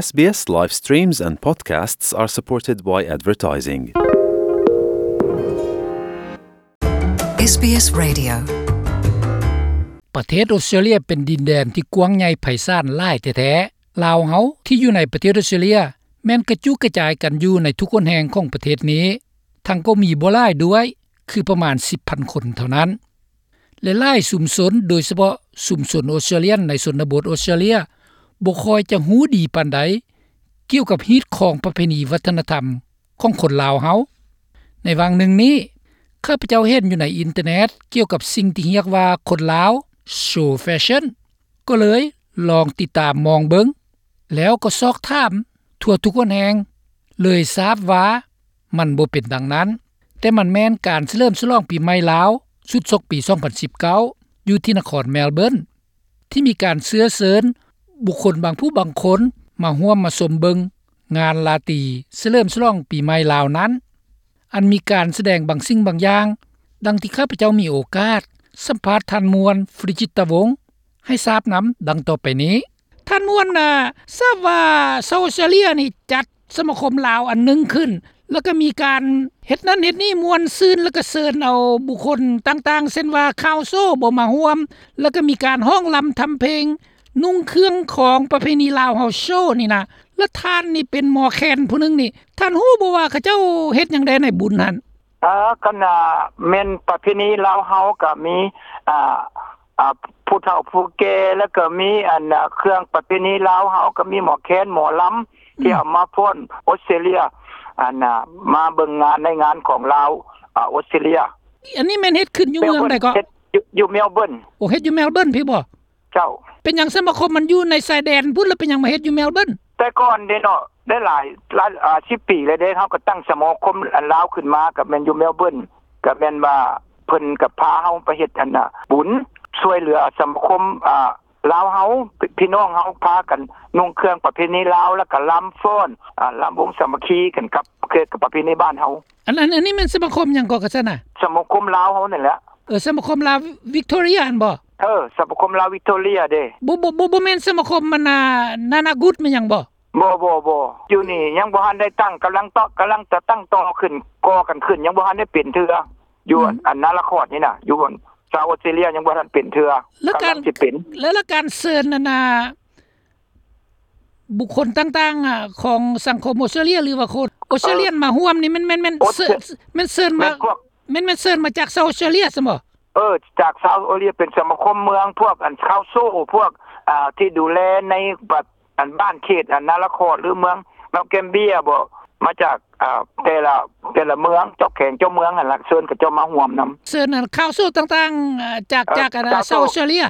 SBS live streams and podcasts are supported by advertising. ເອສບີເອສ Radio. ປະເທດອົດສະຕຣາເລຍເປັນດິນແດນທີ່ກວ້າງໃຫຍ່ໄພສານຫຼາຍແທ້ໆ. ລາວເຮົາທີ່ຢູ່ໃນປະເທດອົດສະຕຣາເລຍ ແມ່ນກະຈຸກະຈາຍກັນຢູ່ໃນທຸກຫົນແຫ່ງຂອງປະເທດນີ້, ທັງກໍມີບໍ່ຫຼາຍດ້ວຍ, ຄືປະມານສິບພັນຄົນເທົ່ານັ້ນ. ແລະ ຫຼາຍຊຸມຊົນ, ໂດຍສະເພາະຊຸມຊົນອົດສະຕຣາເລຍນໃນຊົນນະບົດອົດສະຕຣາເລຍ ບໍ່ຄ່ອຍຈະຮູ້ດີປານໃດ ກ່ຽວກັບຮີດຄອງປະເພນີວັດທະນະທຳຂອງຄົນລາວເຮົາ. ໃນຫວ່າງໜຶ່ງນີ້ ຂ້າພະເຈົ້າເຫັນຢູ່ໃນອິນເຕີເນັດກ່ຽວກັບສິ່ງທີ່ຮຽກວ່າຄົນລາວໂຊແຟຊັ່ນ, ກໍເລີຍລອງຕິດຕາມມອງເບິ່ງ, ແລ້ວກໍຊອກຖາມທົ່ວທຸກຫົນແຫ່ງ, ເລີຍຊາບວ່າມັນບໍ່ເປັນດັ່ງນັ້ນ, ແຕ່ມັນແມ່ນການສະເຫຼີມສະຫຼອງປີໃໝ່ລາວຊຸດສົກປີສອງພັນສິບເກົ້າ ຢູ່ທີ່ນະຄອນແມລເບີນ. ທີ່ມີການເຊື້ອເຊີນບຸກຄົນບາງຜູ້ບາງຄົນມາຮ່ວມມາຊົມເບິ່ງງານລາຕີສະເຫຼີມສະຫຼອງປີໃໝ່ລາວນັ້ນ, ອັນມີການສະແດງບາງສິ່ງບາງຢ່າງ, ດັ່ງທີ່ຂ້າພະເຈົ້າມີໂອກາດສຳພາດທ່ານມ່ວນ ຟຣິຈິດຕະວົງ ໃຫ້ຊາບນຳ ດັ່ງຕໍ່ໄປນີ້. ທ່ານມ່ວນ ອາ ຊາບວ່າຊາວອົດສະຕຣາເລຍນີ້ຈັດ ສະມາຄົມລາວອັນໜຶ່ງຂຶ້ນ, ແລ້ວກໍມີການເຮັດນັ້ນເຮັດນີ້ມ່ວນຊື່ນ, ແລ້ວກໍເຊີນເອົາບຸກຄົນຕ່າງໆ ເຊັ່ນວ່າ ຄາວໂຊ ບໍ່ມາຮ່ວມ, ແລ້ວກໍມີການຮ້ອງລຳທຳເພງ, ນຸ່ງເຄື່ອງຂອງປະເພນີລາວເຮົາໂຊນີ້ນະ. ແລ້ວທ່ານນີ້ເປັນໝໍແຄນຜູ້ໜຶ່ງນີ້, ທ່ານຮູ້ບໍ່ວ່າເຂົາເຈົ້າເຮັດຫຍັງແດ່ໃນບຸນຫັ້ນ? ເອີ ຄັນວ່າແມ່ນປະເພນີລາວເຮົາກໍມີ ອ່າ ອ່າ ຜູ້ເຖົ້າຜູ້ແກ່ ແລ້ວກໍມີ ອັນ ເຄື່ອງປະເພນີລາວເຮົາ ກໍມີໝໍແຄນ ໝໍລຳ ອືມ ທີ່ເອົາມາຟ້ອນອົດສະຕຣາເລຍ ອັນ ມາເບິ່ງງານໃນງານຂອງລາວ ອາ ອົດສະຕຣາເລຍ. ອັນນີ້ແມ່ນເຮັດຂຶ້ນຢູ່ເມືອງໃດເກາະ? ເຮັດຢູ່ ຢູ່ແມລເບີນ. ໂອ້ ເຮັດຢູ່ແມລເບີນພີ້ບໍ່? ເຈົ້າ. ເປັນຫຍັງສະມາຄົມມັນຢູ່ໃນຊາຍແດນພຸ້ນ ແລ້ວເປັນຫຍັງມາເຮັດຢູ່ແມລເບີນ? ແຕ່ກ່ອນເດ້ເນາະ ໄດ້ຫຼາຍ ຫຼາຍ ອາ ສິບປີແລ້ວເດ້ ເຮົາກໍຕັ້ງສະມາຄົມ ອັນ ລາວຂຶ້ນມາ ກໍແມ່ນຢູ່ແມລເບີນ ກໍແມ່ນວ່າເພິ່ນກໍພາເຮົາໄປເຮັດ ອັນນ່າ ບຸນຊ່ວຍເຫຼືອສະມາຄົມ ອາ ລາວເຮົາ ພີ່ນ້ອງເຮົາພາກັນນຸ່ງເຄື່ອງປະເພນີລາວ ແລ້ວກໍລຳຟ້ອນ ອາ ລຳວົງສາມັກຄີກັນກັບ ກັບປະເພນີບ້ານເຮົາ. ອັນ ອັນ ອັນນີ້ແມ່ນສະມາຄົມຫຍັງເກາະ ກະຊັ້ນນະ? ສະມາຄົມລາວເຮົານີ້ແຫຼະ. ເອີ ສະມາຄົມລາວວິກໂຕເຣຍຫັ້ນບໍ່? ເອີ ສະມາຄົມລາວວິກໂຕເຣຍເດ້. ບໍ່ ບໍ່ ບໍ່ ບໍ່ແມ່ນສະມາຄົມ ມັນ ອາ ນານາກຸດແມ່ນຫຍັງບໍ່? ບໍ່ ບໍ່ ບໍ່ ຢູ່ນີ້ຍັງບໍ່ທັນໄດ້ຕັ້ງ ກຳລັງເຕາະ ກຳລັງຈະຕັ້ງຕໍ່ຂຶ້ນ ກໍ່ກັນຂຶ້ນ ຍັງບໍ່ທັນໄດ້ເປັນເທື່ອ ຢູ່ ອືມ ອັນນາລະຄອດນີ້ນະ ຢູ່ຊາວອົດສະຕຣາເລຍຍັງບໍ່ທັນເປັນເທື່ອ. ແລ້ວການ ກຳລັງຊິເປັນ ແລ້ວ ແລ້ວການເຊີນ ອັນນ່າ ບຸກຄົນຕ່າງໆ ອາ ຂອງສັງຄົມອົດສະຕຣາເລຍ ຫຼືວ່າຄົນອົດສະຕຣາເລຍ ເອີ ມາຮ່ວມນີ້ ແມ່ນ ແມ່ນ ແມ່ນ ເຊີນ ແມ່ນເຊີນມາ ແມ່ນພວກ ແມ່ນ ແມ່ນເຊີນມາຈາກຊາວອົດສະຕຣາເລຍຊັ້ນບໍ່? ເອີ ຈາກຊາວອົດສະຕຣາເລຍ ເປັນສະມາຄົມເມືອງ ພວກ ອັນ ຄາວໂຊ ພວກ ອາ ທີ່ດູແລໃນ ອັນ ບ້ານເຂດ ອັນ ນາລະຄອດ ຫຼື ເມືອງເມລແກມເບຍບໍ ມາຈາກ ອາ ແຕ່ລະ ແຕ່ລະເມືອງ ເຈົ້າແຂວງເຈົ້າເມືອງຫັ້ນລະ ເຊີນເຂົາເຈົ້າມາຮ່ວມນຳ. ເຊີນ ອັນ ຄາວໂຊຕ່າງໆ ອາ ຈາກ ເອີ ຈາກ ອັນ ຈາກ ຊາວ ຊາວອົດສະຕຣາເລຍ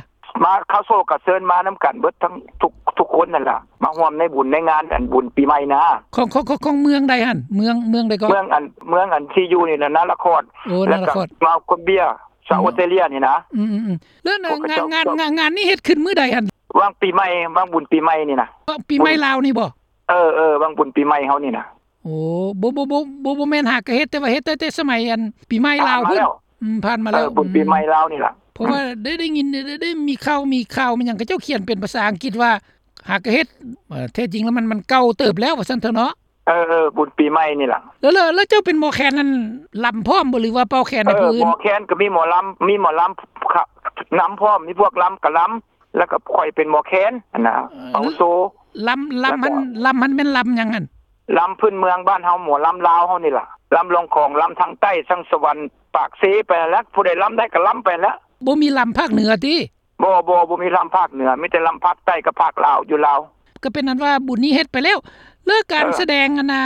ມາ ຄາວໂຊກໍເຊີນມານຳກັນເບິດທັງທຸກ ທຸກຄົນນັ້ນລະ ມາຮ່ວມໃນບຸນໃນງານ ອັນ ບຸນປີໃໝ່ນະ. ຂອງ ຂອງ ຂອງ ຂອງເມືອງໃດຫັ້ນ? ເມືອງ ເມືອງໃດເກາະ? ເມືອງ ອັນ ເມືອງ ອັນ ທີ່ຢູ່ນີ້ນະ ນາລະຄອດ. ໂອ້ ນາລະຄອດ ແລ້ວກໍເມລແກມເບຍ ຊາວ ອືມ ອົດສະຕຣາເລຍນີ້ນະ. ອືມໆ ແລ້ວ ແລ້ວ ງານ ງານ ງານ ງານນີ້ເຮັດຂຶ້ນມື້ໃດຫັ້ນ? ຫວ່າງປີໃໝ່ ຫວ່າງບຸນປີໃໝ່ນີ້ນະ. ປີໃໝ່ລາວນີ້ບໍ? ເອີ ເອີ ຫວ່າງບຸນປີໃໝ່ເຮົານີ້ນະ. ໂອ້ ບໍ່ ບໍ່ ບໍ່ ບໍ່ ບໍ່ແມ່ນຫາກະເຮັດ ແຕ່ວ່າເຮັດແຕ່ ແຕ່ສະໄໝ ອັນ ປີໃໝ່ລາວພຸ້ນ. ອືມ ຜ່ານມາແລ້ວ ເອີ ບຸນປີໃໝ່ລາວນີ້ລະ. ເພາະວ່າໄດ້ ໄດ້ຍິນ ໄດ້ ໄດ້ມີຂ່າວ ມີຂ່າວ ມີຫຍັງ ເຂົາເຈົ້າຂຽນເປັນພາສາອັງກິດວ່າ ຫາກະເຮັດ ເອີ ແທ້ຈິງແລ້ວມັນ ມັນເກົ່າເຕີບແລ້ວ ວ່າຊັ້ນເຖາະເນາະ. ເອີ ເອີ ບຸນປີໃໝ່ນີ້ລະ. ແລ້ວ ແລ້ວ ແລ້ວເຈົ້າເປັນໝໍແຄນນັ້ນ ລຳພ້ອມບໍ່ ຫຼືວ່າເປົ່າແຄນໃຫ້ຜູ້ອື່ນ? ເອີ ໝໍແຄນກໍມີໝໍລຳ ມີໝໍລຳນຳພ້ອມ ມີພວກລຳກໍລຳ ແລ້ວກໍຂ້ອຍເປັນໝໍແຄນຫັ້ນນະ. ເອີ ເປົ່າໂຊ ລຳ ລຳຫັ້ນ ລຳຫັ້ນແມ່ນລຳຫຍັງຫັ້ນ? ລຳພື້ນເມືອງບ້ານເຮົາ ໝໍລຳລາວເຮົານີ້ລະ ລຳລອງຂອງ ລຳທາງໃຕ້ ທາງສະຫວັນ ປາກເຊ ໄປຫັ້ນແຫຼະ ຜູ້ໃດລຳໄດ້ກໍລຳໄປຫັ້ນແຫຼະ. ບໍ່ມີລຳພາກເໜືອຕິ? ບໍ່ ບໍ່ ບໍ່ມີລຳພາກເໜືອ ມີແຕ່ລຳພາກໃຕ້ກັບພາກລາວ ຢູ່ລາວ. ກໍເປັນອັນວ່າບຸນນີ້ເຮັດໄປແລ້ວ. ແລ້ວການ ເອີ ສະແດງອັນນ່າ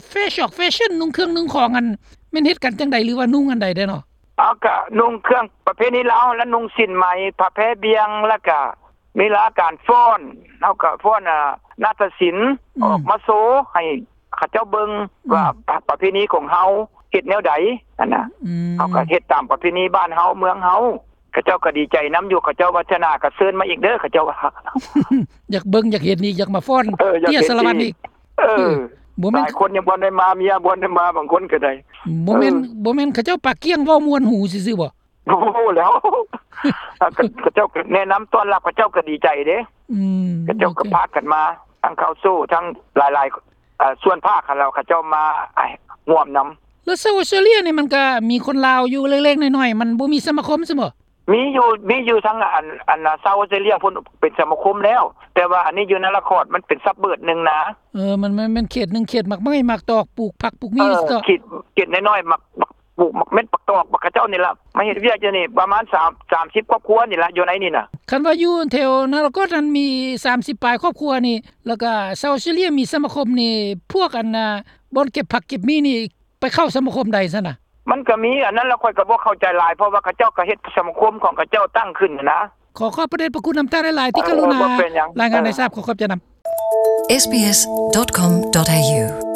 ແຟຊອກແຟຊັ່ນ ນຸ່ງເຄື່ອງນຸ່ງຂອງ ອັນ ແມ່ນເຮັດກັນຈັ່ງໃດ ຫຼືວ່ານຸ່ງອັນໃດແດ່ເນາະ? ເອົາ ກະນຸ່ງເຄື່ອງປະເພນີລາວ ແລະ ນຸ່ງສິ້ນໄໝ ຜ້າແພບ່ຽງ ແລ້ວກະມີລາການຟ້ອນ ເຮົາກະຟ້ອນ ອາ ນາດຕະສິນ ອືມ ອອກມາໂຊໃຫ້ເຂົາເຈົ້າເບິ່ງ ອືມ ວ່າປະ ປະເພນີຂອງເຮົາເຮັດແນວໃດຫັ້ນນະ. ອືມ ເຮົາກໍເຮັດຕາມປະເພນີບ້ານເຮົາເມືອງເຮົາ ເຂົາເຈົ້າກໍດີໃຈນຳຢູ່ ເຂົາເຈົ້າວ່າເທື່ອໜ້າກໍເຊີນມາອີກເດີ ເຂົາເຈົ້າວ່າ ຢາກເບິ່ງ ຢາກເຫັນອີກ ຢາກມາຟ້ອນ ເອີ ຢາກເຕັ້ຍສາລະວັນອີກ. ເອີ ເອີ ບໍ່ແມ່ນ ຫຼາຍຄົນຍັງບໍ່ໄດ້ມາ ເມຍບໍ່ໄດ້ມາ ບາງຄົນກໍໄດ້. ບໍ່ແມ່ນ ເອີ ບໍ່ແມ່ນເຂົາເຈົ້າປາກກ້ຽງເວົ້າມ່ວນຫູຊື່ໆບໍ? ບໍ່ແລ້ວ ເຂົາເຈົ້າກໍແນະນຳຕ້ອນຮັບ ເຂົາເຈົ້າກໍດີໃຈເດ້. ອືມ ເຂົາເຈົ້າກໍພາກັນມາ. ທັງເຂົ້າໂສ້ ທັງຫຼາຍໆ ເອີ່ ສ່ວນພາກຫັ້ນແລ້ວ ເຂົາເຈົ້າມາຮ່ວມນຳ. ແລ້ວຊາວອອສເຕຣເລຍນີ້ ມັນກໍມີຄົນລາວຢູ່ເລັກໆນ້ອຍໆ ມັນບໍ່ມີສະມາຄົມຊັ້ນບໍ? ມີຢູ່ ມີຢູ່ທາງອັນ ອັນຊາວອອສເຕຣເລຍພຸ້ນ ເປັນສະມາຄົມແລ້ວ ແຕ່ວ່າອັນນີ້ຢູ່ນາລະຄອດ ມັນເປັນຊັບເບີບໜຶ່ງນະ. ເອີ ມັນ ມັນເປັນເຂດໜຶ່ງ ເຂດໝາກໄມ້ໝາກຕອກ ປູກຜັກປູກໝີ່ ເອີ ເນາະ ເຂດ ເຂດນ້ອຍໆ ໝາກ ໝາກ ປູກໝາກເມັດ ໝາກຕອກ ໝາກ ເຂົາເຈົ້ານີ້ລະ ມາເຮັດວຽກຢູ່ນີ້ ປະມານສາມ ສາມສິບຄອບຄົວນີ້ລະ ຢູ່ໃນນີ້ນະ. ຄັນວ່າຢູ່ແຖວນາລະຄອດນັ້ນມີສາມສິບປາຍຄອບຄົວນີ້ ແລ້ວກະຊາວອອສເຕຣເລຍມີສະມາຄົມນີ້ ພວກອັນນ່າ ບ່ອນເກັບຜັກເກັບໝີ່ນີ້ ໄປເຂົ້າສະມາຄົມໃດຊັ້ນນະ? ມັນກໍມີອັນນັ້ນລະ ຂ້ອຍກໍບໍ່ເຂົ້າໃຈຫຼາຍ ເພາະວ່າເຂົາເຈົ້າກໍເຮັດສະມາຄົມຂອງເຂົາເຈົ້າຕັ້ງຂຶ້ນນະ. ຂໍຂອບພະເດດພະຄຸນນຳທ່ານຫຼາຍໆ ທີ່ກະລຸນາ ເອີ ບໍ່ເປັນຫຍັງ ລາຍງານໃຫ້ຊາບ. ເອີ ຂໍຂອບໃຈນຳ. SBS dot com dot A U